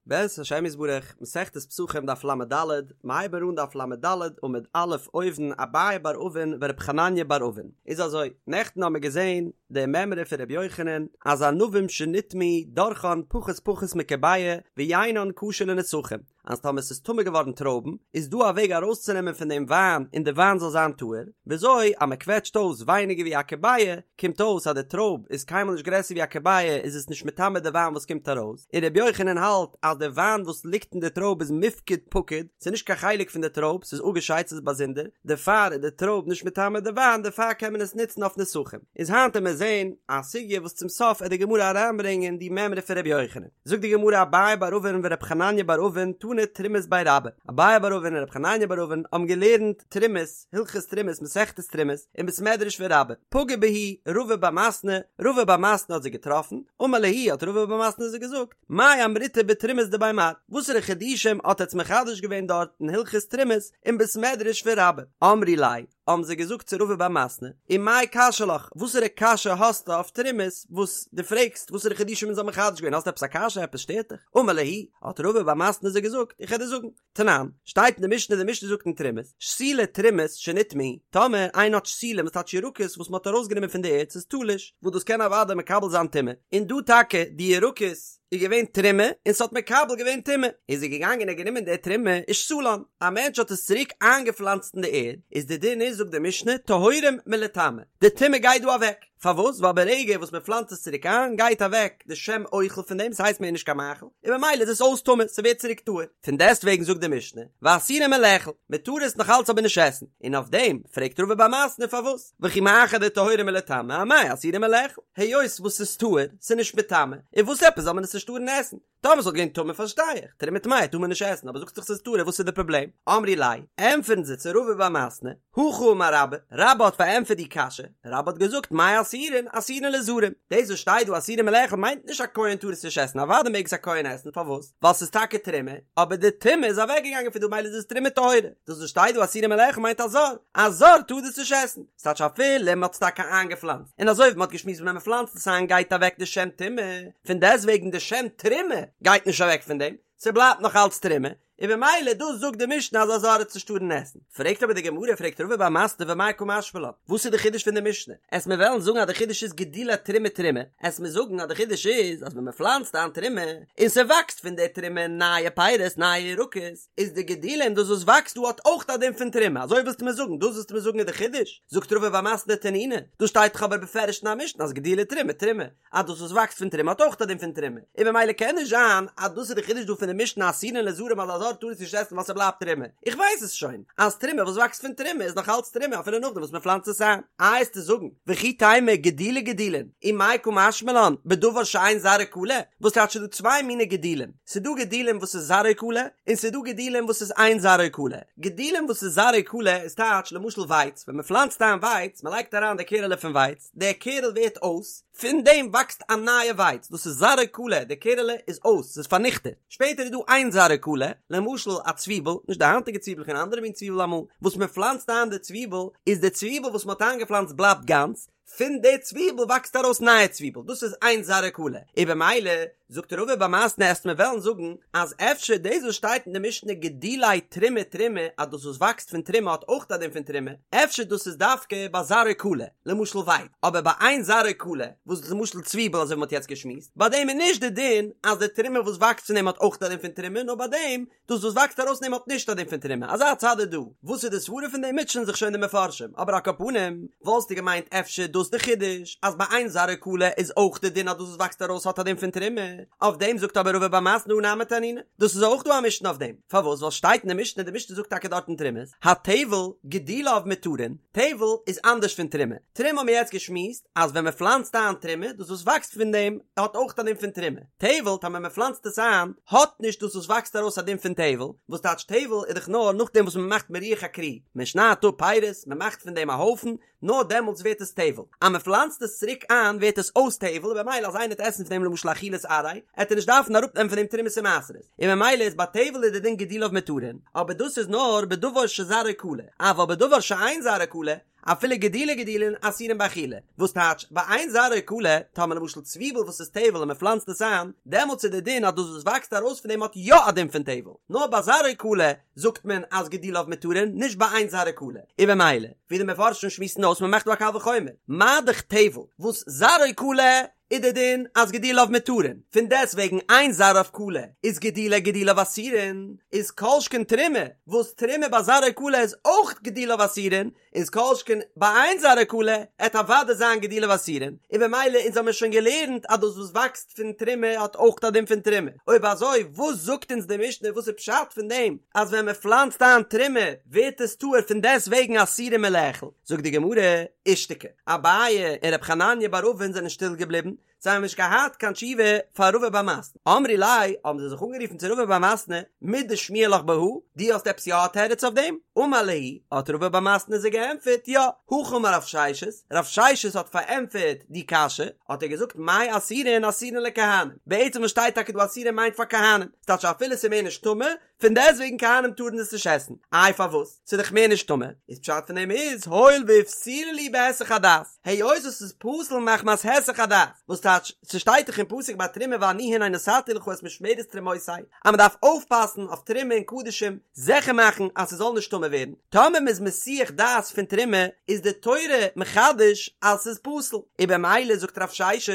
בעזרת השם יתברך, מסכת פסחים דף לד, מ'הייבן אן דף לד עמוד א' אויבן אביי בר אבין ורב חנניה בר אבין. איז אזוי, נעכטן האמיר געזען די מימרא פון רבי יוחנן אז ענבים שנטמאו דורכן פחות פחות מכביעה ויינן כשר לנסכים, אז טאמער ס'איז טמא געווארן טרויבן איז דא א וועג ארויסצונעמען פון דעם וויין און די וויין זאל זיין טהור, וויאזוי אז מ'קוועטשט אויס ווייניגער ווי א כביעה קומט אויס אז די טרויב איז קיינמאל נישט גרעסער ווי א כביעה איז עס נישט מטמא די וויין וואס קומט ארויס, און רבי יוחנן האלט אז די וויין וואס ליגט אין די טרויב איז מיפקד פקיד, ס'איז נישט קיין חלק פון די טרויב, ס'איז אפגעשיידט ס'איז באזונדער, דערפאר איז די טרויב נישט מטמא די וויין דערפאר קען מען עס נוצן אויף נסכים. איז היינט עמיר זעהן א סוגיא וואס צום סוף עט די גמרא אריינברענגען די מימרא פון רבי יוחנן. זאגט די גמרא אביי בר אבין ורב חנניה בר אבין תנו תרומות בי רבה, אביי בר אבין און רב חנניה בר אבין האבן געלערנט תרומות, הלכות תרומות מסכת תרומות, אין בית מדרש פון רבה, פגע בהו רבא בר מתנה, רבא בר מתנה האט זיי געטראפן, אמר להו האט רבא בר מתנה זיי געזאגט, מאי אמריתו בתרומות דבי מר, וואסערע חידושים האט עטץ מחדש געווען דארט אין הלכות תרומות אין בית מדרש פון רבה, אמרי ליה, האבן זיי געזאגט צו רבא בר מתנה, ומאי קשיא לך, וואסערע קשיא האסטו אויף תרומות וואס דו פרעגסט וואסערע חידושים אונז האבן מחדש געווען, האסט עפעס א קשיא, עפעס שטערט דיך? אמר להו, האט רבא בר מתנה זיי געזאגט, איך וועל דיר זאגן, תנן, שטייט אין די משנה, די משנה זאגט אין תרומות, שתילי תרומות שנטמאו, טאמער איינער האט שתילים, וואס טייטש ירקות וואס מען האט ארויסגענומען פון די ערד, ס'איז תלוש, וואס דאס קען אוודאי מקבל זיין טומאה, און דא טאקע די ירקות איז געווען תרומה און ס'האט מקבל געווען טומאה, איז ער געגאנגען און גענומען די תרומה ושתלן, א מענטש האט עס צוריק איינגעפלאנצט אין די ערד, איז די דין איז זאגט די משנה, טהורים מלטמא, די טומאה גייט דא אוועק. פארוואס? ווייל ברגע וואס מען פלאנצט עס צוריק איין גייט אוועק די שם אוכל פון דעם, ס'הייסט מער נישט קיין מאכל, און ממילא איז עס אויס טמא, ס'ווערט צוריק טהור. פון דעסטוועגן זאגט די משנה, ואסורים מלאכול, מען טאר עס נאך אלץ אבער נישט עסן, און אויף דעם פרעגט רבא בר מתנה פארוואס, וכי מאחר דטהורים מלטמא אמאי אסורים מלאכול, היות וואס ס'איז טהור, ס'איז נישט מטמא, און וואס עפעס זאל מען עס נישט טארן עסן? טאמער ס'וואלט געווען טמא פארשטיי איך, תרומה טמאה טאר מען נישט עסן, אבער זאגסט דאך ס'איז טהור וואס איז די פראבלעם? אמרי ליה, ענטפערן זיי צו רבא בר מתנה, הכי אמר רבה, רבה האט פארענטפערט די קשיא, רבה האט געזאגט מאי אסורין, אסורין לזרים, דאס וואס שטייט דא אסורין מלאכול מיינט נישט א כהן טאר עס נישט עסן, אוודאי מעג עס א כהן עסן, פארוואס? ווייל ס'איז טאקע תרומה, אבער די טומאה איז אוועקגעגאנגען פון דא מילא איז עס תרומה טהורה, דאס וואס שטייט דא אסורין מלאכול מיינט א זר, א זר טאר דאס נישט עסן. ס'טייטש אפילו מ'האט עס טאקע איינגעפלאנצט, און אזוי ווי מ'האט געשמועסט ווען מ'פלאנצט עס איין גייט אוועק די שם טומאה, פון דעסטוועגן די שם תרומה גייט נישט אוועק פון דעם, ס'בלייבט נאך אלץ תרומה, און במילא דאס זאגט די משנה אז א זר עט עס נישט טארן עסן. פרעגט אבער די גמרא, פרעגט רבא בר מתנה ומאי קא משמע לן, וואס איז די חידוש פון די משנה? עסט מיר וועלן זאגן אז די חידוש איז גידולי תרומה תרומה, עסט מיר זאגן אז די חידוש איז אז ווען מ'פלאנצט איין תרומה, און ס'וואקסט פון די תרומה נייע פירות נייע ירקות, איז די גידולין דאס וואס וואקסט דא האט אויך א דין פון תרומה, אזוי ווילסטו מיר זאגן? דאס ווילסטו מיר זאגן איז די חידוש? זאגט רבא בר מתנה תנינא, דאס שטייט דאך אבער בפירוש אין א משנה אז גידולי תרומה תרומה, אז דאס וואס וואקסט פון תרומה האט אויך א דין פון תרומה, און ממילא קען נישט זיין אז דאס איז די חידוש דא פון די משנה אסורין לזרים אז א זר טאר עס נישט עסן ווייל ס'בלייבט תרומה, איך ווייס עס שוין אז תרומה וואס וואקסט פון תרומה איז נאך אלץ תרומה אפילו נאכדעם וואס מען פלאנצט עס איין. איי עסטו זאגן, וכי תימא גידולי גידולין, ומאי קא משמע לן, בדבר שאין זרעו כלה, וואס טייטש ס'דא צוויי מיני גידולים, ס'דא גידולים וואס איז זרעו כלה, און ס'דא גידולים וואס איז אין זרעו כלה. גידולים וואס איז זרעו כלה איז טייטש למשל ווייץ, ווען מ'פלאנצט איין ווייץ, מ'לייגט אריין די קערעלע פון ווייץ, דער קערל ווערט אויס, פון דעם וואקסט א נייע ווייץ, דאס איז זרעו כלה, די קערעלע איז אויס, ס'איז פארניכטעט. שפעטער איז דא אין זרעו כלה, למשל א צוויבל, נישט די היינטיגע צוויבל אן אנדערע מין צוויבל אמאל, וואס מ'פלאנצט איין די צוויבל, איז די צוויבל וואס מ'האט איינגעפלאנצט בלייבט גאנץ, פון די צוויבל וואקסט ארויס נייע צוויבל, דאס איז אין זרעו כלה, און במילא זאגט רבא בר מתנה עסט מיר וועלן זאגן אז אפשר דאס וואס שטייט אין די משנה גידולי תרומה תרומה אז דאס וואס וואקסט פון תרומה האט אויך א דין פון תרומה, אפשר דאס איז דווקא ביי זרעו כלה, למשל ווייץ, אבער ביי אין זרעו כלה, וואס איז למשל צוויבל אזוי ווי מען האט יעצט געשמועסט, ביי דעם איז נישט די דין אז די תרומה וואס וואקסט פון דעם האט אויך א דין פון תרומה, נאר ביי דעם דאס וואס וואקסט ארויס פון דעם האט נישט א דין פון תרומה, אזא צד איז דא. וואס איז די סברה פון דעם מוטשען זיך שוין די מפרשים, אבער על כל פנים, וואלסטו געמיינט אפשר דאס די חידוש, אז ביי אין זרעו כלה איז אויך די דין אז דאס וואס וואקסט ארויס האט א דין פון תרומה, אויף דעם זאגט אבער רבא בר מתנה הא נמי תנינא, דאס איז אויך דא א משנה אויף דעם, פארוואס ווייל שטייט אין די משנה, די משנה זאגט טאקע דארט אין תרומות, הטבל גידוליו מותרין, טבל איז אנדערש פון תרומה, תרומה האבן מיר יעצט געשמועסט אז ווען מען פלאנצט איין תרומה, דאס וואס וואקסט פון דעם האט אויך א דין פון תרומה. טבל, טאמער מען פלאנצט עס איין, האט נישט דאס וואס וואקסט ארויס א דין פון טבל, וואס טייטש טבל איז דאך נאר נאכדעם וואס מען מאכט מירוח הכרי, מען שניידט אפ פירות, מען מאכט פון דעם א הויפן, נאר דעמאלטס ווערט עס טבל. טבל, אז מען פלאנצט עס צוריק איין ווערט עס אויס טבל און במילא אז איינער וועט עסן פון דעם למשל אכילת עראי עט ער נישט דארפן אראפנעמען פון דעם תרומות און מעשרות, און ממילא איז ביי טבל איז די דין גידוליו מותרין, אבער דאס איז נאר בדבר שזרעו כלה, אבל בדבר שאין זרעו כלה, אפילו גידולי גידולין אסורין באכילה, וואס טייטש ביי אין זרעו כלה, טאמער למשל צוויבל וואס איז טבל און מען פלאנצט עס איין, דעמאלטס איז די דין אז דאס וואס וואקסט ארויס פון דעם האט יא א דין פון טבל, נאר ביי זרעו כלה זאגט מען אז גידוליו מותרין, נישט ביי אין זרעו כלה, און במילא, ווי די מפרשים שמועסן אויס מען מאכט דא א קל וחומר, מה דאך טבל וואס זרעו כלה איז די דין אז גידוליו מותרין, פון דעסט וועגן אין זרעו כלה איז גידולי גידוליו אסורין, איז כל שכן תרומה, וואס תרומה ביי זרעו כלה איז אויך גידוליו אסורין, איז כל שכן ביי אין זרעו כלה עט אוודאי זיין גידוליו אסורין, און במילא אונז האמיר שוין געלערנט אז דאס וואס וואקסט פון תרומה האט אויך א דין פון תרומה, אויב אזוי וואס זאגט אונז די משנה וואס איז פשט פון דעם אז ווען מען פלאנצט איין תרומה ווערט עס טהור פון דעסט וועגן אסורין מלאכול, זאגט די גמרא, אישתיקו. אביי און ר' חנניה בר אבין זענען שטיל געבליבן, זיי האבן נישט געהאט קיין תשובה פאר רבא בר מתנה. אמרי ליה, האבן זיי זיך אנגערופן צו רבא בר מתנה, מידי שמיע לך בהא, דו האסט עפעס יא א תירוץ אויף דעם? אמר להו, האט רבא בר מתנה זיי געענטפערט, יא, הכי אמר רב ששת, רב ששת האט פארענטפערט די קשיא, האט ער געזאגט מאי אסורין אסורין לכהנים, בעצם וואס שטייט טאקע דא אסורין מיינט פאר כהנים, ס'טייטש אפילו ס'איז מער נישט טמא, פון דעסטוועגן כהנים טארן עס נישט עסן, איי פארוואס? ס'איז דאך מער נישט טמא, איז פשט פון דעם איז הואיל ואיפסילו להו בהיסח הדעת, היות עס איז פסול מחמת היסח הדעת, וואס טייטש, ס'שטייט דאך אין פסוק ביי תרומה ואני הנה נתתי לך את משמרת תרומותי, אז מ'דארף אויפפאסן אויף תרומה און קדשים, זיכער מאכן אז ס'זאל נישט טמא ווערן, טאמער מ'איז מסיח דעת פון תרומה, איז די תורה מחדש אז ס'איז פסול, און במילא זאגט רב ששת,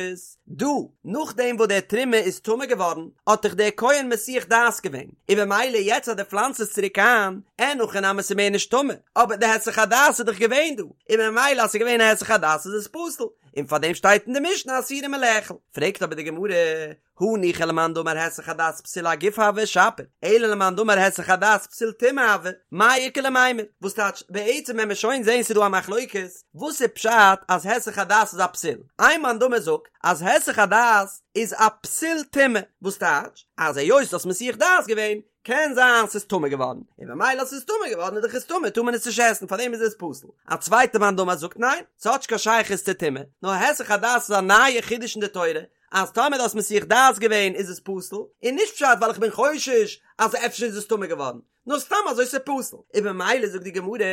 דא, נאכדעם וואס דער תרומה איז טמא געווארן, האט דאך דער כהן מסיח דעת געווען, און במילא יעצט אז דו פלאנצט עס צוריק איין, אין הכי נמי ס'איז מער נישט טמא, אבער די היסח הדעת איז דאך געווען דא, און במילא אז ס'איז געווען א היסח הדעת איז עס פסול, און פארדעם שטייט אין די משנה אסורין מלאכול. פרעגט אבער די גמרא, הניחא למאן דאמר היסח הדעת פסול הגוף הוי שפיר, אלא למאן דאמר היסח הדעת פסול טומאה הוי, מאי איכא למימר? וואס טייטש, בעצם ווען מיר שוין זעהן ס'איז דא א מחלוקת, וואס איז פשט אז היסח הדעת איז א פסול? איין מאן דאמר זאגט אז היסח הדעת איז א פסול טומאה, וואס טייטש אז היות האסט מסיח דעת געווען, קען זיין ס'איז טמא געווארן, און במילא אז ס'איז טמא געווארן איז דאך עס טמא טאר מען עס נישט עסן פארדעם איז עס פסול. א צווייטע מאן דאמר זאגט ניין, ס'האט נישט קיין שייכות צו טומאה, נאר היסח הדעת איז א נייע חידוש אין די תורה, אז טאמער דו האסט מסיח דעת געווען איז עס פסול, און נישט פשט ווייל איך בין חושש אז אפשר איז עס טמא געווארן, נאר סתם אזוי ס'איז פסול, און במילא זאגט די גמרא,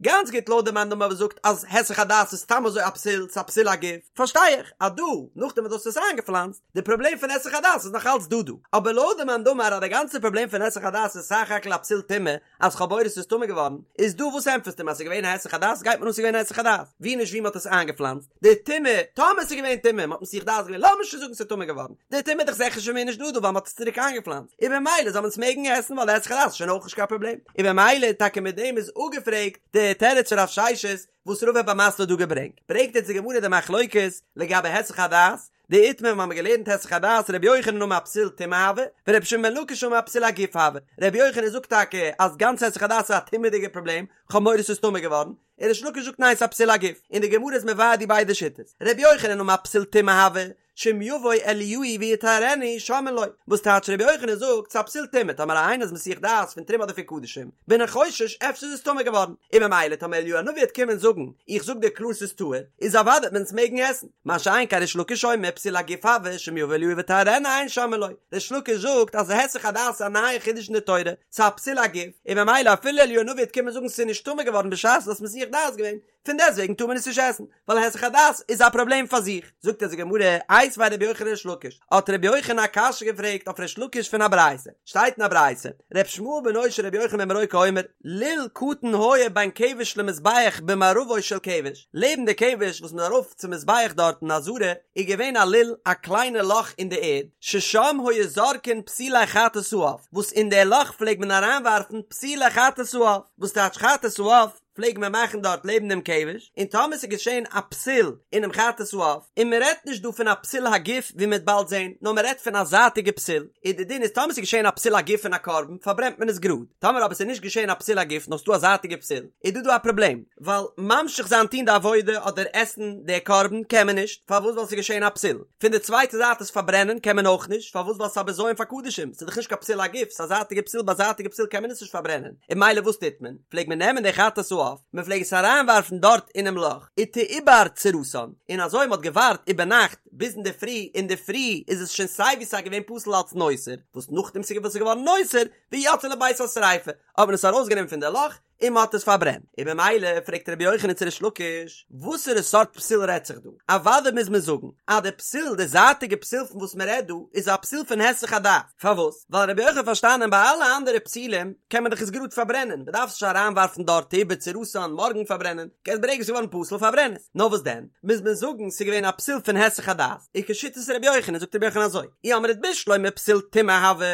גאנץ גוט לויט די מאן דאמר וואס זאגט אז היסח הדעת איז סתם אזוי א פסול, ס'איז א פסול הגוף, פארשטיי איך אז דא, נאכדעם וואס דו האסט עס איינגעפלאנצט, די פראבלעם פון היסח הדעת איז נאך אלץ דא דא, אבער לויט די מאן דאמר אז די גאנצע פראבלעם פון היסח הדעת איז סך הכל א פסול טומאה, אז כ'האב מורא ס'איז טמא געווארן, איז דא וואס ענטפערסטו אים אז ס'איז געווען א היסח הדעת, גייט מיר אן ס'איז געווען א היסח הדעת, ווי נישט ווי מ'האט עס איינגעפלאנצט, די טומאה, טאמער ס'איז געווען טומאה, מ'האט מסיח דעת געווען, לאמיר שוין זאגן ס'איז טמא געווארן, די טומאה איז דאך זיכער שוין מער נישט דא דא ווייל מ'האט עס צוריק איינגעפלאנצט, און במילא זאל מען עס מעגן עסן ווייל די היסח הדעת איז שוין אויך נישט קיין פראבלעם, און במילא טאקע מיט דעם איז אפגעפרעגט די תירוץ פון רב ששת וואס רבא בר מתנה האט דא געברענגט, ברענגט יעצט די גמרא די מחלוקת לגבי היסח הדעת, דאיתמר מיר האבן געלערנט היסח הדעת רבי יוחנן אמר פסול טומאה הוי, ורבי שמעון בן לקיש אמר פסול הגוף הוי, רבי יוחנן זאגט טאקע אז גאנץ היסח הדעת איז א טומאה'דיגע פראבלעם, כ'האב מורא ס'איז טמא געווארן, און ריש לקיש זאגט ניין ס'איז א פסול הגוף, און די גמרא איז מבאר די ביידע שיטות, רבי יוחנן אמר פסול טומאה הוי, שאם יבוא אליהו ויטהרנו שומעין לו, וואס טייטש רבי יוחנן זאגט ס'איז א פסול טומאה טאמער איינער איז מסיח דעת פון תרומה אדער פון קדשים, בין איך חושש אפשר איז עס טמא געווארן, און ממילא טאמער אליהו הנביא וועט קומען זאגן איך זאג דיר קלאר ס'איז טהור, איז אוודאי וועט מען עס מעגן עסן, מה שאין כן ריש לקיש אומר פסול הגוף הוי שאם יבוא אליהו ויטהרנו אין שומעין לו, ריש לקיש זאגט אז היסח הדעת איז א נייע חידוש אין די תורה, ס'איז א פסול הגוף, און ממילא אפילו אליהו הנביא וועט קומען זאגן ס'איז נישט טמא געווארן בשעת דו האסט מסיח דעת געווען, פון דעסטוועגן טאר מען עס נישט עסן, ווייל היסח הדעת איז א פראבלעם פאר זיך. זאגט אונז די גמרא, איתיביה רבי יוחנן לריש לקיש, האט רבי יוחנן א קשיא געפרעגט אויף ריש לקיש פון א ברייתא, שטייט אין א ברייתא, ר' ישמעאל בנו של רבי יוחנן בן ברוקה אומר, לול קטן היה בין כבש למזבח במערבו של כבש, לעבן די כבש וואס מ'איז ארויף צום מזבח דארט אין עזרה, איז געווען א לול, א קליינע לאך אין די ערד, ששם היו זורקין פסולי חטאת העוף, וואס אין די לאך פלעג מען אריינווארפן פסולי חטאת העוף, וואס טייטש חטאת העוף? פלעג מען מאכן דארט לעבן דעם כבש, און טאמער ס'איז געשען א פסול אינעם חטאת העוף, און מען רעדט נישט דא פון א פסול הגוף ווי מ'וועט באלד זען, נאר מען רעדט פון א זייטיגע פסול, איז די דין איז טאמער ס'איז געשען א פסול הגוף פון א קרבן פארברענט מען עס גראד, טאמער אבער ס'איז נישט געשען א פסול הגוף נאר ס'איז דא א זייטיגע פסול, איז דא דא א פראבלעם, ווייל ממשיך זיין טון די עבודה אדער עסן די קרבן קען מען נישט, פארוואס ווייל ס'איז געשען א פסול, פון די צווייטע זייט עס פארברענען קען מען אויך נישט, פארוואס ווייל ס'איז א בזיון פאר קדשים, ס'איז דאך נישט קיין פסול הגוף, ס'איז א זייטיגע פסול, ביי זייטיגע פסול קען מען עס נישט פארברענען, און ממילא וואס טוט מען? פלעג מען נעמען די חטאת העוף. העוף, מען פלעג עס אריינווארפן דארט אינעם לאך, ותעובר צורתן, און אזוי מען האט געווארט איבערנאכט ביז אינדערפרי, אינדערפרי איז עס שוין סיי ווי סיי געווען פסול אלץ נותר, וואס נאכדעם ס'איז געווארן נותר, ויוצאין לבית השריפה, האט מען עס ארויסגענומען פון די לאך, און מען האט עס פארברענט, און במילא פרעגט רבי יוחנן צו ריש לקיש, וואסערע סארט פסול רעדט זיך דא? אוודאי מוז מען זאגן אז די פסול, די זייטיגע פסול פון וואס מען רעדט דא, איז א פסול פון היסח הדעת, פארוואס? ווייל רבי יוחנן האט פארשטאנען ביי אלע אנדערע פסולים קען מען דאך עס גראד פארברענען, מען דארף עס נישט אריינווארפן דארט תעובר צורתן מארגן פארברענען, קענסט ברגע עס איז געווארן פסול פארברען עס, נאר וואס דען מוז מען זאגן ס'איז געווען א פסול פון היסח הדעת, און כשיטת רבי יוחנן זאגט רבי יוחנן אזוי, אי אמרת בשלמא פסול טומאה הוי,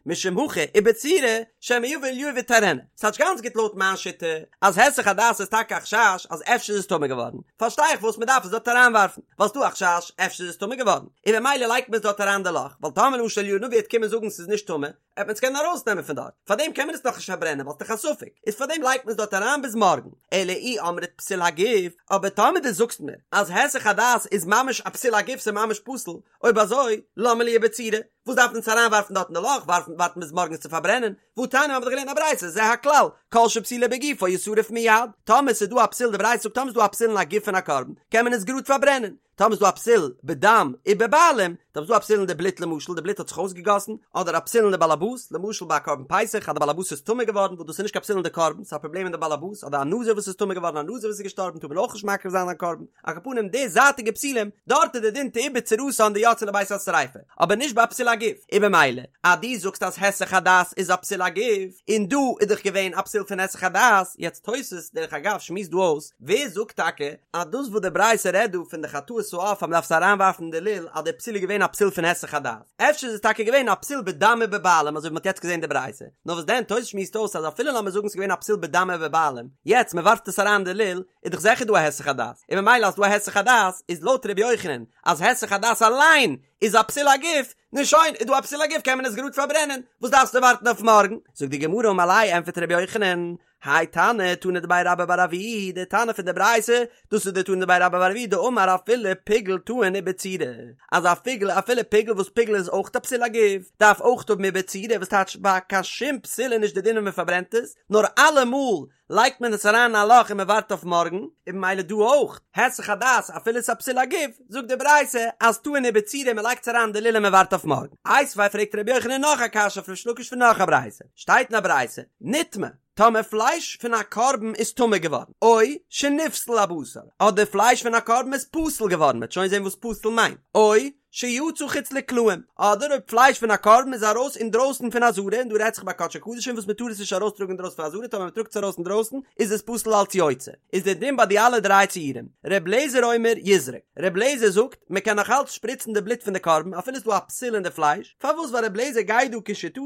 משום הכי עיבור צורה, שמא יבא אליהו וטהרנה. ס'טייטש גאנץ גוט לויט מיין שיטה אז היסח הדעת איז טאקע א חשש אז אפשר איז עס טמא געווארן, פארשטיי איך וואס מ'דארף עס דארט אריינווארפן, ווייל ס'דא א חשש אפשר איז עס טמא געווארן, און במילא לייגט מען עס דארט אריין די לאך, ווייל טאמער למשל אליהו הנביא וועט קומען זאגן ס'איז נישט טמא, וועט מען עס קענען ארויסנעמען פון דארט, פארדעם קען מען עס נאכנישט פארברענען ווייל ס'דאך א ספק, איז פארדעם לייגט מען עס דארט אריין ביז מארגן, אלא אי אמרת פסול הגוף, אבער טאמער דו זאגסט מיר אז היסח הדעת איז ממש א פסול הגוף ס'איז ממש פסול, אויב אזוי למה לי עיבור צורה, וואס דארף מען עס אריינווארפן דארט אין די לאך, ווארפן ווארטן ביז מארגן עס צו פארברענען, והתניא מ'האט דאך געלערנט א ברייתא זה הכלל, כל שפסולו בגופו ישרף מיד, טאמער ס'איז דא א פסול די ברייתא זאגט טאמער ס'איז דא א פסול אין א גוף פון א קרבן קען מען עס גראד פארברענען, טאמער איז דא א פסול בדם ובבעלים, טאמער איז דא א פסול אין די בלוט למשל די בלוט האט זיך אויסגעגאסן, אדער א פסול אין די באלעבאס, למשל ביי א קרבן פסח אז די באלעבאס איז טמא געווארן וואס דאס איז נישט קיין פסול אין די קרבן ס'איז א פראבלעם אין די באלעבאס, אדער א נזיר וואס איז טמא געווארן א נזיר וואס איז געשטארבן טאר מען אויך נישט מקריב זיין א קרבן, על כל פנים די זייטיגע פסולים, דארט איז די דין תעובר צורתן דיוצאין לבית השריפה, אבער נישט ביי א פסול הגוף, און במילא אז דו זאגסט אז היסח הדעת איז א פסול הגוף, און דא איז דאך געווען א פסול פון היסח הדעת, יעצט תוס' דרך אגב שמועסט דא אויס, ווער זאגט טאקע אז דאס וואס די ברייתא רעדט דא פון די חטאת העוף אז מ'דארף עס אריינווארפן אין די לול אז די פסול איז געווען א פסול פון היסח הדעת? אפשר איז עס טאקע געווען א פסול בדם ובבעלים אזוי ווי מ'האט יעצט געזען די ברייתא, נאר וואס דען תוס' שמועסט אויס אז אפילו לאמיר זאגן ס'איז געווען א פסול בדם ובבעלים, יעצט מ'ווארפט עס אריין אין די לול איז דאך זיכער דא א היסח הדעת, און ממילא אז ס'דא א היסח הדעת איז לויט ר' יוחנן אז היסח הדעת אליין איז א פסול הגוף, נו שוין, איז דא א פסול הגוף קען מען עס גראד פארברענען, וואס דארפסטו ווארטן אויף מארגן? זאגט די גמרא אמר ליה ענפערט ר' יוחנן, האי תנא תנא דבי רבה בר אבוה, די תנא פון די ברייתא, דאס איז די תנא דבי רבה בר אבוה דאמר אפילו פיגול טעון עיבור צורה, אז א פיגול אפילו פיגול וואס פיגול איז אויך א פסול הגוף, דארף אויך האבן עיבור צורה, וואס טייטש ביי קיין שום פסול איז נישט די דין ווען מען פארברענט עס, נאר אלעמאל לייגט מען עס אריין אין א לאך און מען ווארט אויף מארגן, און במילא דא אויך, היסח הדעת אפילו עס איז א פסול הגוף, זאגט די ברייתא אז טעון עיבור צורה מען לייגט עס אריין אין די לול און מען ווארט אויף מארגן. איתיביה פרעגט רבי יוחנן נאך א קשיא אויף ריש לקיש פון נאך א ברייתא, שטייט אין א ברייתא, נטמא, טאמער פלייש פון א קרבן איז טמא געווארן, או שנפסל הבשר, אדער פלייש פון א קרבן איז פסול געווארן, מ'וועט שוין זען וואס פסול מיינט, או שיצא חוץ לקלעים, אדער אויב פלייש פון א קרבן איז ארויס אינדרויסן פון עזרה, און דא רעדט זיך ביי קדשי קדשים וואס מ'טאר עס נישט ארויסטראגן אינדרויסן פון עזרה, טאמער מ'טראגט עס ארויס אינדרויסן איז עס פסול אלץ יוצא, איז דער דין ביי די אלע דריי ציורים, ר' לעזער אומר יזרק, ר' לעזער זאגט מ'קען נאך אלץ שפריצן די בלוט פון די קרבן אפילו ס'איז דא א פסול אין די פלייש, פארוואס ווייל ר' לעזער גייט דא כשיטתו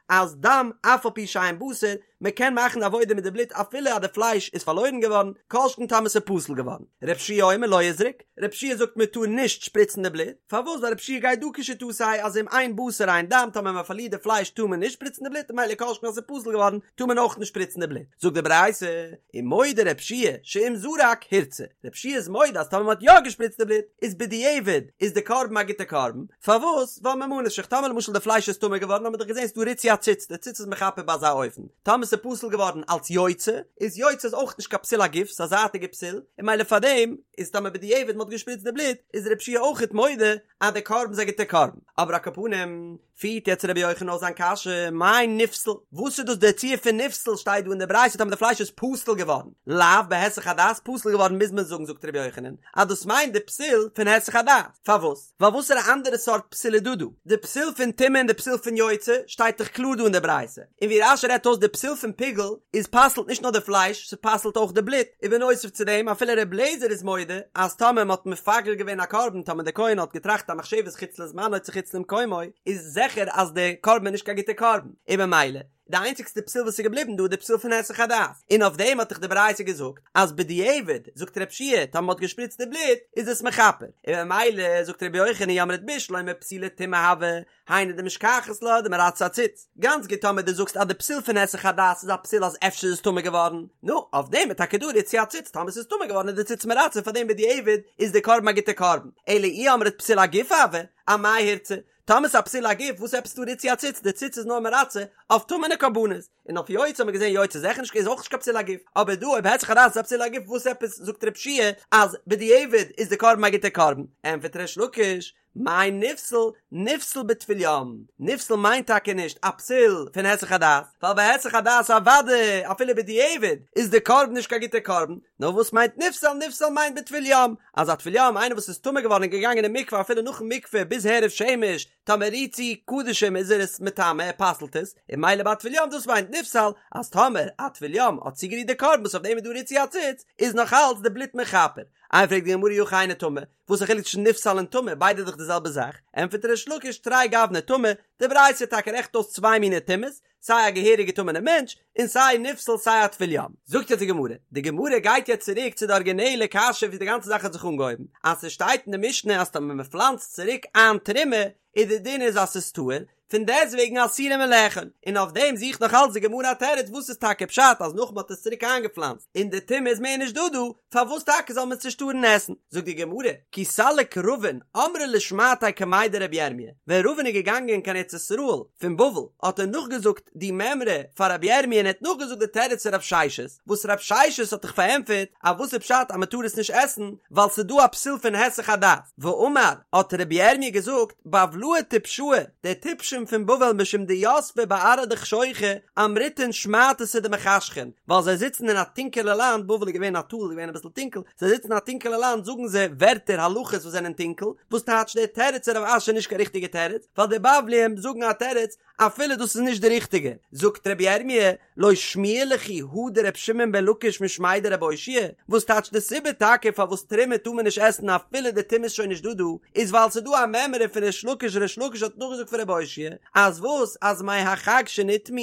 אז דם אף על פי שאין בשר, מען קען מאכן עבודה מיט די בלוט אפילו אז די פלייש איז פארלוירן געווארן, כל שכן טאמער ס'איז פסול געווארן. ר' יהושע אומר לא יזרוק, ר' יהושע זאגט מען טאר נישט שפריצן די בלוט, פארוואס ווייל ר' יהושע גייט דא כשיטתו אז אם אין בשר אין דם טאמער מען פארלירט די פלייש טאר מען נישט שפריצן די בלוט ממילא כל שכן אז ס'איז פסול געווארן טאר מען אויך נישט שפריצן די בלוט. זאגט די ברייתא, ומודה ר' יהושע שאם זרק הורצה, ר' יהושע איז מודה אז טאמער מען האט יא געשפריצט די בלוט איז בדיעבד איז די קרבן א גוטע קרבן, פארוואס? ווייל ממה נפשך, טאמער למשל די פלייש איז טמא געווארן האט מען דאך געזען ס'דא ריצוי הציץ, די ציץ איז מכפר ביי אזא אופן, טאמער ס'איז פסול געווארן אלץ יוצא, איז יוצא איז אויך נישט קיין פסול הגוף, ס'איז א זייטיגע פסול, און ממילא פארדעם איז טאמער בדיעבד מ'האט געשפריצט די בלוט, איז ר' יהושע אויכעט מודה אז די קרבן איז א גוטע קרבן, אבער על כל פנים, פירט יעצט רבי יוחנן אויס זיין קשיא, מאי נפסל? וואס איז דאס דער ציור פון נפסל שטייט דא אין די ברייתא טאמער די פלייש איז פסול געווארן, לאו בהיסח הדעת פסול געווארן מוז מען זאגן זאגט רבי יוחנן אז דאס מיינט די פסול פון היסח הדעת, פארוואס? ווייל וואסערע אנדערע סארט פסול איז דא דא? די פסול פון טומאה און די פסול פון יוצא שטייט דאך קלאר דא אין די ברייתא, און ווי רש"י רעדט אויס די פסול פון פיגול איז פסל'ט נישט נאר די פלייש ס'פסל'ט אויך די בלוט, און בנוסף צו דעם אפילו ר' לעזער איז מודה אז טאמער מ'האט מפגל געווען א קרבן טאמער די כהן האט געטראכט א מחשבת חוץ לזמנו צו חוץ למקומו איז זיכער אז די קרבן איז נישט קיין גוטע קרבן און במילא די איינציגסטע פסול וואס איז געבליבן דא איז די פסול פון היסח הדעת און אויף דעם האט דאך די ברייתא געזאגט אז בדיעבד זאגט ר' יהושע טאמער מ'האט געשפריצט די בלוט איז עס מכפר און במילא זאגט ר' יוחנן אי אמרת בשלמא פסולי טומאה הוו היינו דמשכחת לה דמרצה הציץ. גאנץ גוט טאמער דו זאגסט אז די פסול פון היסח הדעת איז א פסול אז אפשר איז עס טמא געווארן, נו, אויף דעם איז טאקע דא ריצוי הציץ, טאמער ס'איז טמא געווארן איז די ציץ מרצה פאר דעם בדיעבד איז די קרבן א גוטע קרבן, אלא אי אמרת פסול הגוף הוה, אמאי הורצה? טאמער ס'איז א פסול הגוף וואס עפעס דא ריצוי הציץ, די ציץ איז נאר מרצה אויף טמא'נע קרבנות, און אויף יוצא האט מען געזען יוצא זיכער נישט איז אויך נישט קיין פסול הגוף, אבער דא אויב היסח הדעת איז א פסול הגוף וואס עפעס זאגט רב שיע אז בדיעבד איז די קרבן א גוטע קרבן, ענפערט ריש לקיש, מאי נפסל, נפסל בטבול יום, נפסל מיינט טאקע נישט א פסול פון היסח הדעת, ווייל ביי היסח הדעת אוודאי אפילו בדיעבד איז די קרבן נישט קיין גוטע קרבן, נאר וואס מיינט נפסל, נפסל מיינט בטבול יום, אז א טבול יום איינער וואס איז טמא געווארן און געגאנגען אין מקווה אפילו נאכן מקווה ביז הערב שמש, טאמער רירט צו קדשים איז ער עס מטמא ער פסל'ט עס, און ממילא ביי א טבול יום דאס מיינט נפסל, אז טאמער א טבול יום האט צוגערירט די קרבן וואס אויף דעם איז דא ריצוי הציץ, איז נאך אלץ די בלוט מכפר. איי פרעגט די גמרא אי הכי היינו טמא, וואס א חילוק צווישן נפסל און טמא, ביידע איז דאך די זעלבע זאך, ענטפערט ריש לקיש תרי גווני טמא, די ברייתא טאקע רעכנט אויס צוויי מיני טומאות, סיי א געהעריגע טמא'נע מענטש, און סיי נפסל סיי א טבול יום. זאגט יעצט די גמרא, די גמרא גייט יעצט צוריק צו די ארגינעלע קשיא ווי די גאנצע זאך האט זיך אנגעהויבן, אז ס'שטייט אין די משנה אז טאמער מ'פלאנצט צוריק איין תרומה, איז די דין איז אז ס'איז טהור, פון דעסטוועגן אסורה מלאכול, און אויף דעם זוכט נאך אלץ די גמרא א תירוץ וואס איז טאקע פשט אז נאך מ'האט עס צוריק איינגעפלאנצט און די טומאה איז מער נישט דא דא, פארוואס טאקע זאל מען עס נישט טארן עסן? זאגט די גמרא, כי סליק רבין אמרה לשמעתיה קמיה דרבי ירמיה, ווען רבין איז געגאנגען קיין ארץ ישראל פון בבל האט ער נאכגעזאגט די מימרא פאר רבי ירמיה און ער האט נאכגעזאגט די תירוץ פון רב ששת, וואס רב ששת האט דאך פארענטפערט אז וואס איז פשט אז מ'טאר עס נישט עסן ווייל ס'איז דא א פסול פון היסח הדעת, ואמר, האט רבי ירמיה געזאגט, בבלאי טפשאי, די טיפשים פון בבל משום דיתבי בארעא דחשוכא אמריתון שמעתתא דמחשכין, ווייל זיי זיצן אין א טונקעלע לאנד, בבל איז געווען א טאל, איז געווען אביסל טונקל, זיי זיצן אין א טונקעלע לאנד זאגן זיי ווערטער הלכות וואס זענען טונקל, וואס טייטש דער תירוץ פון רב אשי איז נישט קיין ריכטיגע תירוץ, ווייל די בבליים זאגן א תירוץ אפילו דאס איז נישט די ריכטיגע, זאגט רבי ירמי', לא שמיע לכו הא דר' שמעון בן לקיש משמיה דרבי אושעיא, וואס טייטש די סיבה טאקע פארוואס תרומה טאר מען נישט עסן אפילו די טומאה איז שוין נישט דא דא, איז ווייל ס'איז דא א מימרא פון ריש לקיש ריש לקיש האט נאכגעזאגט פון רבי אושעיא, אז וואס אז מי החג שנטמאו,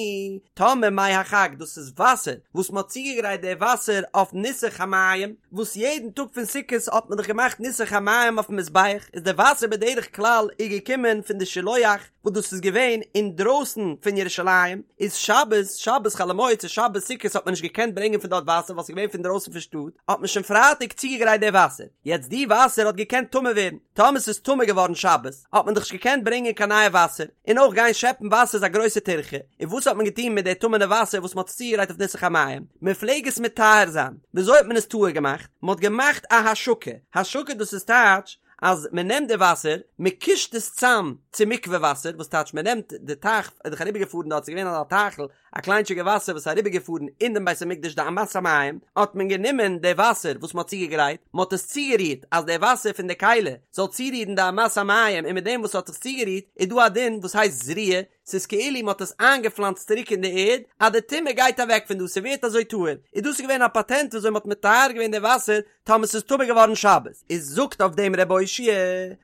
טאמער מי החג דאס איז וואסער וואס מ'האט צוגעגרייט די וואסער אויף ניסוך המים, וואס יעדן טאג פון סוכות האט מען דאך געמאכט ניסוך המים אויפן מזבח, איז די וואסער בדרך כלל איז געקומען פון די שילוח, וואס דאס איז געווען אינדרויסן פון ירושלים, איז שבת, שבת חול המועד צו שבת סוכות האט מען נישט געקענט ברענגען פון דארט וואסער ווייל ס'איז געווען פון דרויסן פון שטאט, האט מען שוין פרייטאג צוגעגרייט די וואסער, יעצט די וואסער האט געקענט טמא ווערן, טאמער ס'איז טמא געווארן שבת, האט מען דאך נישט געקענט ברענגען קיין נייע וואסער, און אויך גיין שעפן וואסער איז א גרויסע טירחה, און וואס האט מען געטון מיט די טמא'נע וואסער וואס מען האט צוגעגרייט אויף ניסוך המים? מען פלעג עס מטהר זיין, וויאזוי האט מען עס טהור געמאכט? מען האט געמאכט א השקה, השקה דאס איז טייטש, אז מען נעמט די וואסער, מען קישט עס צאם צו מקווה וואסער, וואס טייטש מען נעמט די טייך, איז דאך אריבער געפארן דארט, ס'איז געווען אזא טייכל, א קליינטשיגע וואסער וואס איז אריבער געפארן אין דעם בית המקדש די אמת המים, האט מען גענומען די וואסער וואס מען האט צוגעגרייט, מען האט עס צוגערירט אז די וואסער פון די כלי זאל צורירן די אמת המים, און מיט דעם וואס ס'האט זיך צוגערירט איז דא א דין וואס הייסט זריעה, ס'איז כאילו מ'האט עס איינגעפלאנצט צוריק אין די ערד, אז די טומאה גייט אוועק פון דא, ס'ווערט אזוי טהור, איז דאס געווען א פאטענט וויאזוי מ'האט מטהר געווען די וואסער טאמער ס'איז טמא געווארן שבת, איז זאגט אויף דעם ר' אושעיא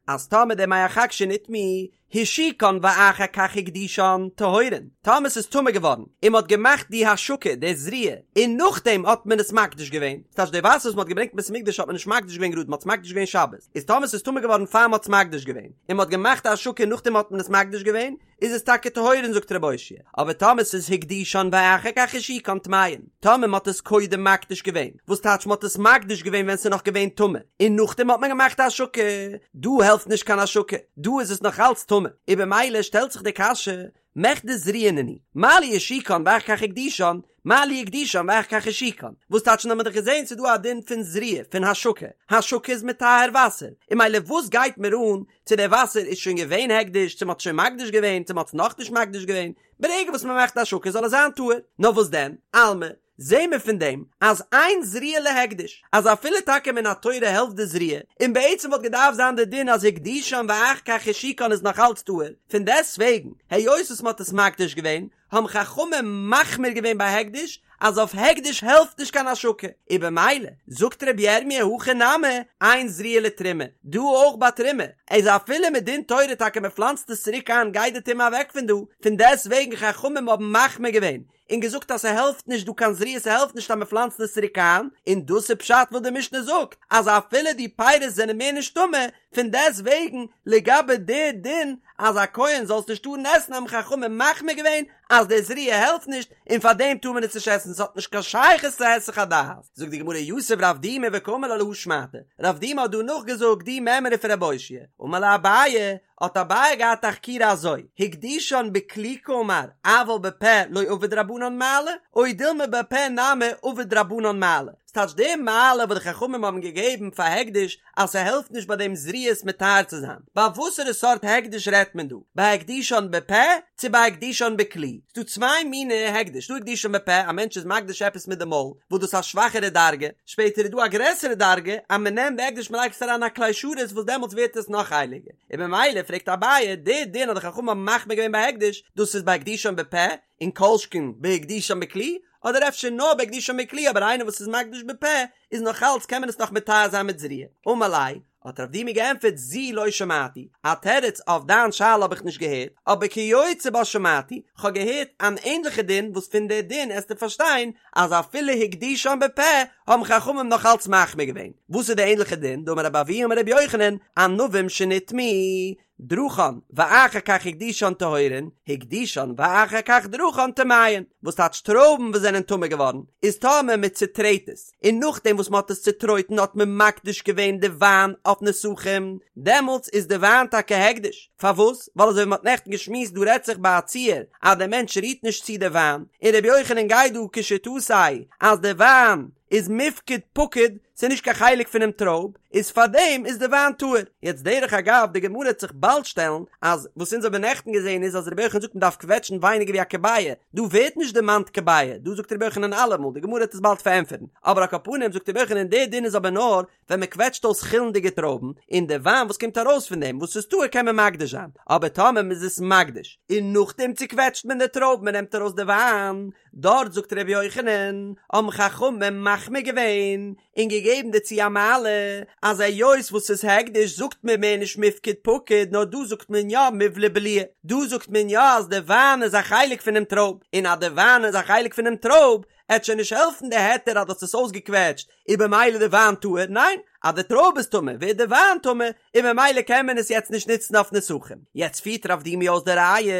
אז טאמער די מי החג שנטמאו השיקן ואחר כך הקדישן טהורין, טאמער ס'איז טמא געווארן און מ'האט געמאכט די השקה, די זריעה, און נאכדעם האט מען עס מקדיש געווען, ס'טייטש די וואסער וואס מ'האט געברענגט אין בית המקדש האט מען נישט מקדיש געווען גראד, מ'האט עס מקדיש געווען שבת, איז טאמער ס'איז טמא געווארן פאר מ'האט עס מקדיש געווען, און מ'האט געמאכט א השקה און נאכדעם האט מען עס מקדיש געווען, איז עס טאקע טהורין זאגט ר' אושעיא, אבער טאמער ס'איז הקדישן ואחר כך השיקן טמאין, טאמער מ'האט עס קודם מקדיש געווען, וואס טייטש מ'האט עס מקדיש געווען ווען ס'איז נאך געווען טמא, און נאכדעם האט מען געמאכט א השקה, דא העלפט נישט קיין השקה, דא איז עס נאך אלץ טמא, און במילא שטעלט זיך די קשיא, מכדי זריעה נינהו, מה לי השיקן ואחר כך הקדישן, מה לי הקדישן ואחר כך השיקן, וואס טייטש האמיר דאך געזען ס'איז דא א דין פון זריעה פון השקה, השקה איז מטהר וואסער, און ממילא וואס גייט מיר אן צו דער וואסער איז שוין געווען הקדש, צו מ'האט שוין מקדיש געווען, צו מ'האט עס נאכנישט מקדיש געווען, ברגע וואס מ'מאכט השקה זאל עס זיין טהור, נאר וואס דען, אלמא, זעהן מיר פון דעם אז אין זריעה להקדש, אז אפילו טאקע מן התורה העלפט די זריעה, און בעצם וואלט געדארפט זיין די דין אז הקדישן ואחר כך השיקן איז נאך אלץ טהור, פון דעסטוועגן, היות וואס מ'האט עס מקדיש געווען, האבן חכמים מחמיר געווען ביי הקדש, אז אויף הקדש העלפט נישט קיין השקה, און במילא, זאגט רבי ירמי' הכא נמי, אין זריעה לתרומה, דא אויך ביי תרומה, איז אפילו מדין תורה טאקע מ'פלאנצט עס צוריק איין גייט די טומאה אוועק פון דא, פון דעסטוועגן חכמים האבן מחמיר געווען, און געזאגט אז ס'העלפט נישט דא קיין זריעה ס'העלפט נישט אז מ'פלאנצט עס צוריק איין, און דאס איז פשט וואס די משנה זאגט אז אפילו די פירות זענען מער נישט טמא, פון דעסט וועגן לגבי די דין אז א כהן זאל עס נישט טארן עסן האבן חכמים מחמיר געווען אז די זריעה העלפט נישט און פאר דעם טאר מען עס נישט עסן ס'האט נישט קיין שייכות צו היסח הדעת. זאגט די גמרא יתיב רב דימי וקאמר לה להא שמעתא, רב דימי האט דא נאכגעזאגט די מימרא פון רב אושעיא, אמר ליה אביי. האט אביי געהאט א חקירה אזוי, הקדישן בכלי קאמר אבל בפה לא עבוד רבנן מעלה, או דילמא בפה נמי עבוד רבנן מעלה, ס'טייטש די מעלה וואס די חכמים האבן געגעבן פאר הקדש אז ס'העלפט נישט ביי דעם זריעה מטהר צו זיין, ביי וואסערע סארט הקדש רעדט מען דא? ביי הקדישן בפה צו ביי הקדישן בכלי? ס'דא צוויי מיני הקדש, ס'דא הקדישן בפה, א מענטש איז מקדיש עפעס מיט די מויל, וואס דאס איז א שוואכערע דרגה, שפעטער איז דא א גרעסערע דרגה אז מ'נעמט די הקדש מ'לייגט עס אריין אין א כלי שרת וואס דעמאלטס ווערט עס נאך הייליגער, און במילא פרעגט אביי, די דין אז די חכמים האבן מחמיר געווען ביי הקדש, דאס איז ביי הקדישן בפה, און כל שכן בהקדישן בכלי, אדער אפשר נאר בהקדישן בכלי אבער איינער וואס איז מקדיש בפה איז נאך אלץ קען מען עס נאך מטהר זיין מיט זריעה. אמר ליה, האט רב דימי געענטפערט זו לא שמעתי, א תירוץ אויף דיין שאלה האב איך נישט געהערט, אבער כיוצא בה שמעתי, כ'האב געהערט אן ענדליכע דין וואס פון די דין עסטו פארשטיין אז אפילו הקדישן בפה האבן חכמים נאך אלץ מחמיר געווען. וואס איז די ענדליכע דין? דאמר רבי אבהו אמר רבי יוחנן, ענבים שנטמאו, דרכן ואחר כך הקדישן טהורין, הקדישן ואחר כך דרכן טמאין, וואס טייטש טרויבן וואס זענען טמא געווארן, איז טאמער מען צוטרעט עס, און נאכדעם וואס מען האט עס צוטרויטן האט מען מקדיש געווען די וויין אויף נסכים, דעמאלטס איז די וויין טאקע הקדש, פארוואס? ווייל אזוי ווי מען האט נעכטן געשמועסט דא רעדט זיך ביי א ציור אז דער מענטש רירט נישט צו די וויין, און רבי יוחנן גייט דא כשיטתו אז די וויין איז מיפקד פקיד, ס'איז נישט קיין חלק פונעם טרויב, איז פארדעם איז די וויין טהור. יעצט דרך אגב, די גמרא וועט זיך באלד שטעלן, אז וואס אונז האבן נעכטן געזען איז אז רבי יוחנן זאגט מ'דארף קוועטשן ווייניגער ווי א כביעה, דא ווערט נישט דערמאנט כביעה, דא זאגט רבי יוחנן אלעמאל, די גמרא וועט עס באלד פארענטפערן, אבער על כל פנים זאגט רבי יוחנן די דין איז אבער נאר ווען מ'קוועטשט אויס חולין'דיגע טרויבן, און די וויין וואס קומט ארויס פון דעם וואס איז טהור קען מען מקדיש זיין, אבער טאמער מ'איז עס מקדיש און נאכדעם צוקוועטשט מען די טרויבן מ'נעמט ארויס די וויין, דארט זאגט ר' יוחנן, האבן חכמים מחמיר געווען און געגעבן דערצו א מעלה, אז היות וואס ס'איז הקדש זאגט מען מער נישט מיפקד פקיד נאר דא זאגט מען יא מיבלע בליעי, דא זאגט מען יא אז די וויין איז א חלק פונעם טרויב, און אז די וויין איז א חלק פונעם טרויב, עט שוין נישט העלפן די היתר אז דו האסט עס אויסגעקוועטשט איז במילא די וויין טהור, ניין, אז די טרויב איז טמא ווערט די וויין טמא, און במילא קען מען עס יעצט נישט נוצן אויף נסכים. יעצט פירט רב דימי אויס די ראיה,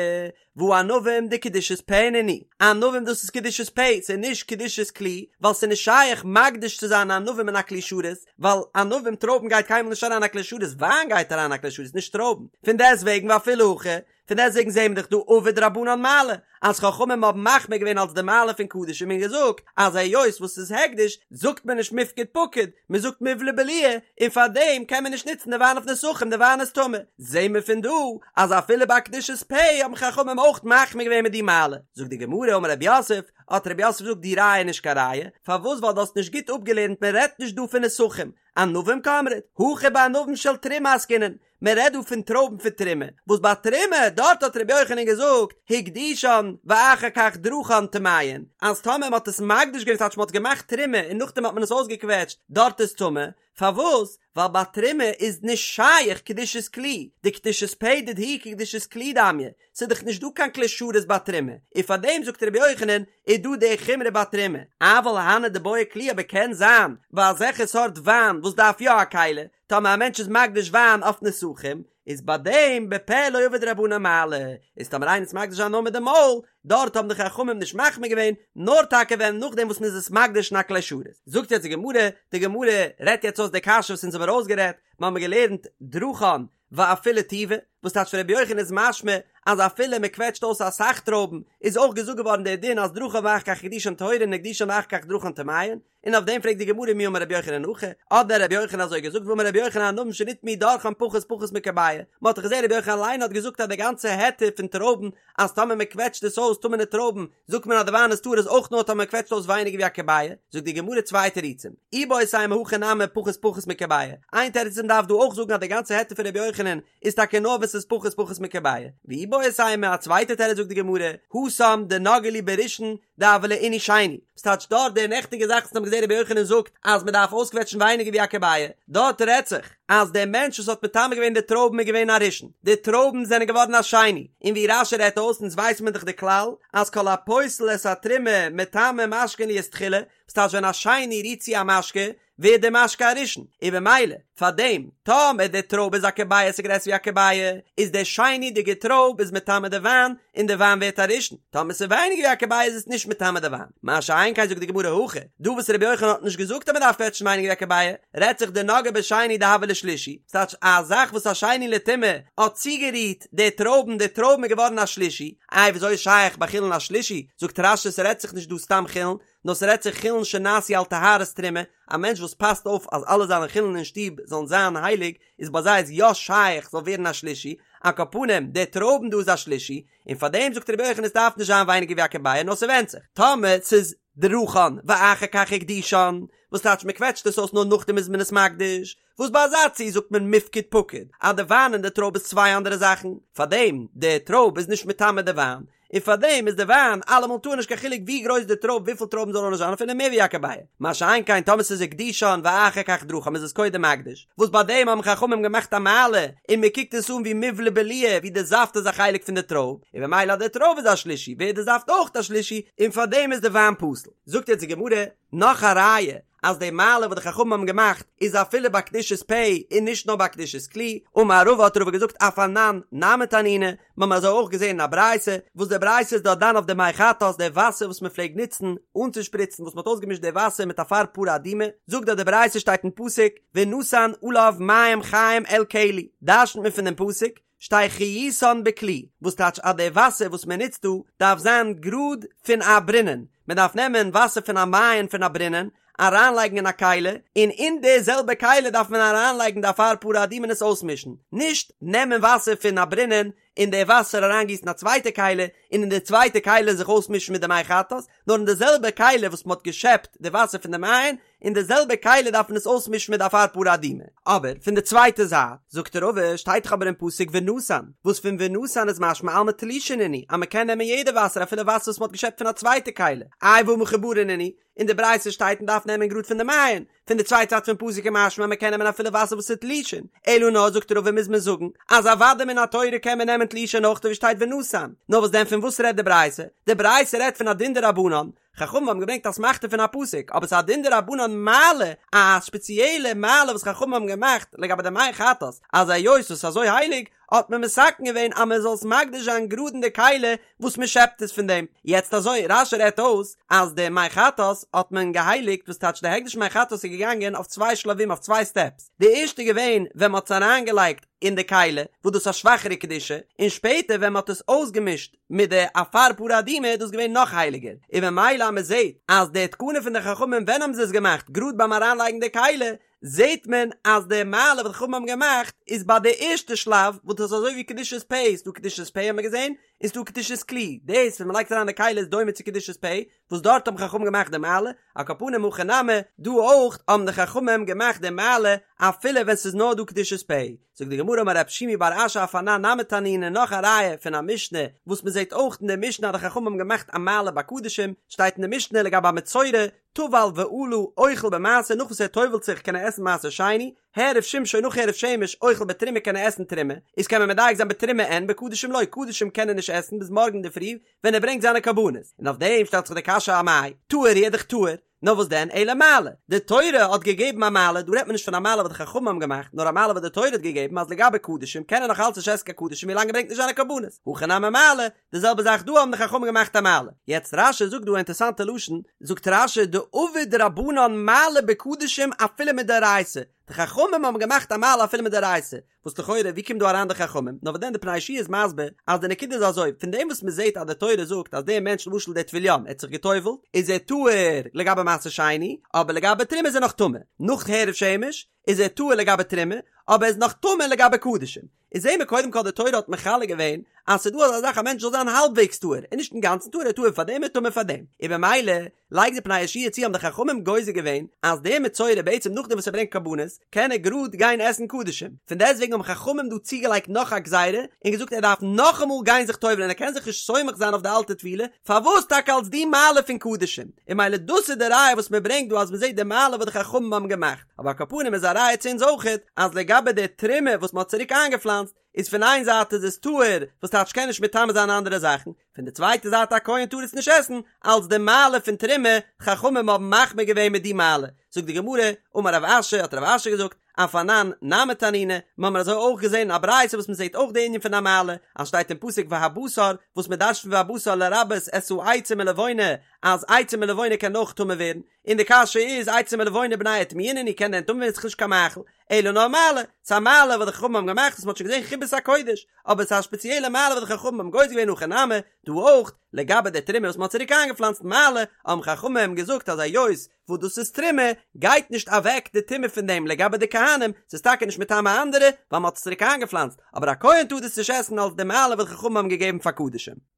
והא ענבים דקדושת פה נינהו, ענבים דאס איז קדושת פה, ס'איז נישט קדושת כלי, ווייל ס'איז נישט שייך מקדיש צו זיין ענבים אין א כלי שרת, ווייל ענבים טרויבן גייט קיינמאל נישט אריין א כלי שרת, וויין גייט אריין א כלי שרת נישט טרויבן, פון דעסטוועגן ואפילו הכי, פון דעסטוועגן זעהן מיר דאך דא עבוד רבנן מעלה, אז חכמים האבן מחמיר געווען אלס די מעלה פון קדשים און געזאגט אז היות וואס ס'איז הקדש זאגט מען נישט מיפקד פקיד, מען זאגט מיבלע בליעי, און פאר דעם קען מען נישט נוצן די וויין אויף נסכים, די וויין איז טמא. זעהן מיר פון דא אז אפילו ביי קדושת פה האבן חכמים אויך מחמיר געווען מיט די מעלה. זאגט די גמרא אמר רב יוסף, האט רב יוסף געזאגט די ראיה איז נישט קיין ראיה, פארוואס ווייל דו האסט נישט גוט אפגעלערנט מען רעדט נישט דא פון נסכים, ענבים קאמרת, הכא בענבים של תרומה עסקינן, מען רעדט דא פון טרויבן פון תרומה, וואס ביי תרומה, דארט האט רבי יוחנן געזאגט, הקדישן ואחר כך דרכן טמאין, אז טאמער מען האט עס מקדיש געווען ס'טייטש מען האט געמאכט תרומה און נאכדעם האט מען עס אויסגעקוועטשט, דארט איז טמא, פארוואס? ווייל ביי תרומה איז נישט שייך קדושת כלי, דקדושת פה דידהו כקדושת כלי דמיא, ס'איז דאך נישט דא קיין כלי שרת ביי תרומה, און פארדעם זאגט רבי יוחנן איז דא די חומרא ביי תרומה, אבל הני דבעי כלי אבער קען זיין ביי אזעלכע סארט וויין וואס דארף יא א כלי, טאמער א מענטש איז מקדיש וויין אויף נסכים, איז ביי דעם בפה לא עבוד רבנן מעלה, איז טאמער איינער איז מקדיש וויין נאר מיט די מויל, דארט האבן די חכמים נישט מחמיר געווען, נאר טאקע ווען נאכדעם וואס מען איז עס מקדיש אין א כלי שרת. זאגט יעצט די גמרא, די גמרא רעדט יעצט אויס די קשיא וואס אונז האבן ארויסגערעדט, מיר האבן געלערנט דרכן ואפילו טובא, וואס טייטש פון רבי יוחנן איז משמע אז אפילו מען קוועטשט אויס אסאך טרויבן איז אויך געזאגט געווארן דער דין אז דרכן ואחר כך הקדישן טהורין הקדישן ואחר כך דרכן טמאין, און אויף דעם פרעגט די גמרא מי אמר רבי יוחנן הכי, האט דען רבי יוחנן אזוי געזאגט והאמר רבי יוחנן ענבים שנטמאו דורכן פחות פחות מכביעה, מען האט דאך געזען רבי יוחנן אליין האט געזאגט אז די גאנצע היתר פון טרויבן אז טאמער מען קוועטשט עס אויס טמא'נע טרויבן זאגט מען אז די וויין איז טהור איז אויך נאר טאמער מען קוועטשט אויס ווייניגער ווי א כביעה, זאגט די גמרא צוויי תירוצים, איבעית אימא הכא נמי פחות פחות מכביעה, איין תירוץ איז מען דארף דא אויך זאגן אז די גאנצע היתר פון רבי יוחנן איז טאקע נאר ווען ס'איז פחות פחות מכביעה, ואיבעית אימא א צווייטע תירוץ זאגט די גמרא, התם דנגעו להו בראשון דהוה להו עינוי שני, ס'טייטש דארט די נעכטיגע זאך וואס מ'האט געזען רבי יוחנן זאגט אז מ'דארף אויסקוועטשן ווייניגער ווי א כביעה, דארט רעדט זיך אז דער מענטש וואס האט מטמא געווען די טרויבן איז געווען א ראשון, די טרויבן זענען געווארן א שני, און ווי רש"י רעדט אויס אונז ווייסן מיר דאך די כלל אז כל הפוסל את התרומה מטמא משקין להיות תחילה, ס'טייטש ווען א שני רירט צו א משקה. ווערט די משקה א ראשון, און במילא פאר דעם טאמער די טרויב איז א כביעה ס'איז גרעסער ווי א כביעה, איז די שני'דיגע טרויב איז מטמא די וויין, און די וויין ווערט א ראשון, טאמער ס'איז ווייניגער ווי א כביעה איז עס נישט מטמא די וויין, מה שאין כן זאגט די גמרא הכא, דא וואס רבי יוחנן האט נישט געזאגט אז מ'דארף קוועטשן ווייניגער ווי א כביעה, רעדט זיך דנגעה בשני דהוה ליה שלישי, ס'טייטש א זאך וואס א שני לטומאה האט צוגערירט די טרויבן, די טרויבן איז געווארן א שלישי, איי וויאזוי איז שייך ביי חולין א שלישי, זאגט רש"י ס'רעדט זיך נישט דא סתם חולין, נאר ס'רעדט זיך חולין שנעשו על טהרת תרומה, א מענטש וואס פאסט אויף אז אלע זיינע חולין אין שטוב זאלן זיין הייליג, איז ביי זיי איז יא שייך ס'זאל ווערן א שלישי, על כל פנים די טרויבן דא איז א שלישי, און פאר דעם זאגט רבי יוחנן עס דארף נישט זיין ווייניגער ווי א כביעה נאר ס'ווענדט זיך טאמער ס'איז דרכן ואחר כך הקדישן, וואס טייטש מ'קוועטשט עס אויס נאר נאכדעם איז מען עס מקדיש, וואס ביי אזא ציור זאגט מען מיפקד פקיד אז די וויין און די טרויב איז צוויי אנדערע זאכן, פארדעם די טרויב איז נישט מטמא די וויין, און פארדעם איז די וויין אלעמאל טהור נישט קיין חילוק ווי גרויס די טרויב וויפיל טרויבן זאל נאר זיין אפילו מער ווי א כביעה, מה שאין כן טאמער ס'איז הקדישן ואחר כך דרכן איז עס קודם מקדיש, וואס ביי דעם האבן חכמים געמאכט א מעלה און מען קוקט עס אן ווי מיבלע בליעי ווי די זאפט איז א חלק פון די טרויב, און במילא אז די טרויב איז א שלישי ווערט די זאפט אויך א שלישי און פארדעם איז די וויין פסול. זאגט יעצט די גמרא נאך א ראיה אז די מעלה וואס די חכמים האבן געמאכט איז אפילו ביי קדושת פה און נישט נאר ביי קדושת כלי, אמר רבא האט רבא געזאגט אף אנן נמי תנינא, מיר האבן אזוי אויך געזען אין א ברייתא, וואס די ברייתא איז דארט דן אויף די מי חטאת, די וואסער וואס מען פלעגט נוצן אנצושפריצן וואס מען האט אויסגעמישט די וואסער מיט אפר פרה אדומה, זאגט דארט די ברייתא שטייט אין פסוק ונתן עליו מים חיים אל כלי, דרש'נט מען פון דעם פסוק שתהא חיותן בכלי, וואס טייטש אז די וואסער וואס מען נוצט דא דארף זיין גראד פון א ברינען, מען דארף נעמען וואסער פון א מעיין פון א ברינען, אריינלייגן אין א כלי, און אין די זעלבע כלי דארף מען אריינלייגן די אפר פרה אדומה און עס אויסמישן, נישט נעמען וואסער פון א ברינען און די וואסער אריינגיסן אין א צווייטע כלי, און אין די צווייטע כלי זיך אויסמישן מיט די מי חטאת, נאר אין די זעלבע כלי וואס מען האט געשעפט די וואסער פון די מעיין, אין די זעלבע כלי דארף מען עס אויסמישן מיט די אפר פרה אדומה. אבער פון די צווייטע זייט, זאגט רבא, שטייט דאך אבער אין פסוק ונתן, וואס פון ונתן איז משמע אלמא תלושין נינהו, אז מען קען נעמען יעדע וואסער אפילו וואסער וואס מען האט געשעפט פון א צווייטע כלי, איי והא מחוברין נינהו, אין די ברייתא שטייט מען דארף נעמען גראד פון די מעיין, פון די צווייטע זייט פון פסוק איז משמע אז מען קען נעמען אפילו וואסער וואס איז תלושין, אלא נאר זאגט רבא מוז מען זאגן אז אוודאי מן התורה קען מען נעמען תלושין אויך ווי שטייט ונתן, נאר וואס דען פון וואס רעדט די ברייתא? די ברייתא רעדט פון א דין דרבנן, חכמים האבן געברענגט אסמכתא פון א פסוק, אבער ס'איז א דין דרבנן מעלה, א ספעציעלע מעלה וואס חכמים האבן געמאכט לגבי די מי חטאת, אז היות עס איז אזוי הייליג, האט מען מתקן געווען אז מען זאל עס מקדיש זיין גראד אין די כלי וואס מען שעפט עס פון דעם. יעצט אזוי, רש"י רעדט אויס אז די מי חטאת האט מען געהייליגט, וואס טייטש די הקדש מי חטאת איז געגאנגען אויף צוויי שלבים אויף צוויי סטעפס, די ערשטע איז געווען ווען מען האט עס אריינגעלייגט אין די כלי, וואס דאס איז א שוואכערע קדושה, און שפעטער ווען מען האט עס אויסגעמישט מיט די אפר פרה אדומה איז דאס געווען נאך הייליגער, און ממילא אז מען זעט אז די תקנה פון די חכמים ווען האבן זיי עס געמאכט גראד ביים אריינלייגן די כלי, זעט מען אז די מעלה וואס די חכמים האבן געמאכט איז ביי די ערשטע שלב וואס דאס איז אזוי ווי קדושת פה, ס'דא קדושת פה האט מען געזען, און ס'דא קדושת כלי, דאס ווען מ'לייגט אריין די כלי איז דומה צו קדושת פה, וואס דארט האבן חכמים געמאכט די מעלה, על כל פנים הכא נמי, דא אויך האבן די חכמים געמאכט די מעלה אפילו ווען ס'איז נאר דא קדושת פה. זאגט די גמרא אמר רב שימי בר אשי אף אנן נמי תנינא נאך א ראיה פון א משנה וואס מ'זעט אויך אין די משנה אז די חכמים האבן געמאכט א מעלה ביי קדשים, שטייט אין די משנה לגבי א מצורע, טבל ועלה אוכל במעשר נאך וואס ער טובל'ט זיך קען ער עסן מעשר שני, העריב שמשו נאך הערב שמש אוכל בתרומה קען ער עסן תרומה, איז קען מען מדייק זיין בתרומה אין בקדשים לא, קדשים קען ער נישט עסן ביז מארגן אינדערפרי ווען ער ברענגט זיינע קרבנות, און אויף דעם שטעלט זיך די קשיא אמאי טהור הוא איז דאך טהור, נאר וואס דען אלא מעלה, די תורה האט געגעבן א מעלה, דא רעדט מען נישט פון א מעלה וואס די חכמים האבן געמאכט, נאר א מעלה וואס די תורה האט געגעבן אז לגבי קדשים קען ער נאך אלץ נישט עסן קיין קדשים ווילאנג ער ברענגט נישט זיינע קרבנות, הכא נמי מעלה, די זעלבע זאך דא האבן די חכמים געמאכט א מעלה. יעצט רש"י זאגט דא א אינטערסאנטע לשון, זאגט רש"י דעבוד רבנן מעלה בקדשים אפילו מדאורייתא, די חכמים האבן געמאכט א מעלה אפילו מדאורייתא, וואס לכאורה ווי קומט דא אריין די חכמים, נאר וואס דען די פני יהושע איז מסביר אז די נקודה איז אזוי, פון דעם וואס מען זעט אז די תורה זאגט אז דער מענטש למשל דער טבול יום ער האט זיך גע'טובל'ט איז ער טהור לגבי מעשר שני, אבער לגבי תרומה איז ער נאך טמא, נאך הערב שמש איז ער טהור לגבי תרומה, אבער ער איז נאך טמא לגבי קדשים. איז זעהן מיר קודם כל די תורה האט מחלק געווען אז ס'איז דא אזא זאך א מענטש זאל זיין האלבוועגס טהור און נישט אינגאנצן טהור ער איז טהור פאר דעם און טמא פאר דעם און במילא לייגט די פני יהושע צו האבן די חכמים גוזר געווען אז דער מצורע בעצם נאכדעם וואס ער ברענגט קרבנות קען ער גראד גיין עסן קדשים פון דעסטוועגן האבן חכמים דא צוגעלייגט נאך א גזירה און געזאגט ער דארף נאכאמאל גיין זיך טובל'ען ער קען זיך נישט סומך זיין אויף די אלטע טבילה פארוואס טאקע אלס די מעלה פון קדשים און במילא דאס איז די ראיה וואס מען ברענגט דא אז מען זעט די מעלה וואס די חכמים האבן געמאכט. אבער על כל פנים איז א ראיה צו אונז אויכעט אז לגבי די תרומה וואס מען האט צוריק איינגעפלאנצט איז פון איין זייט איז עס טהור וואס טייטש קען נישט מטמא זיין אנדערע זאכן, פון די צווייטע זייט א כהן טאר עס נישט עסן, אלס די מעלה פון תרומה, חכמים האבן מחמיר געווען מיט די מעלה, זאגט די גמרא, אמר רב אשי, האט רב אשי געזאגט, אף אנן נמי תנינא, מיר האבן אזוי אויך געזען אין א ברייתא וואס מען זעט אויך די ענין פון א מעלה, אז שטייט אין פסוק והבשר, וואס מען דרש'נט פון והבשר לרבות את העצים ולבונה, אז עצים ולבונה קען אויך טמא ווערן, און די קשיא איז עצים ולבונה בני איטמויי נינהו קען דען טמא ווערן ס'איז נישט קיין מאכל, אלא נאר מעלה, ס'איז א מעלה וואס די חכמים האבן געמאכט וואס מ'האט שוין געזען חיבת הקודש, אבער ס'איז א ספעציעלע מעלה וואס די חכמים האבן גוזר געווען הכא נמי, דא אויך, לגבי די תרומה וואס מ'האט צוריק איינגעפלאנצט מעלה, האבן חכמים געזאגט אז היות וואס דאס איז תרומה, גייט נישט אוועק די טומאה פון דעם לגבי די כהנים, ס'איז טאקע נישט מטמא אנדערע, ווייל מ'האט עס צוריק איינגעפלאנצט, אבער א כהן טאר דאס נישט עסן אלס די מעלה וואס די חכמים האבן געגעבן פאר קדשים.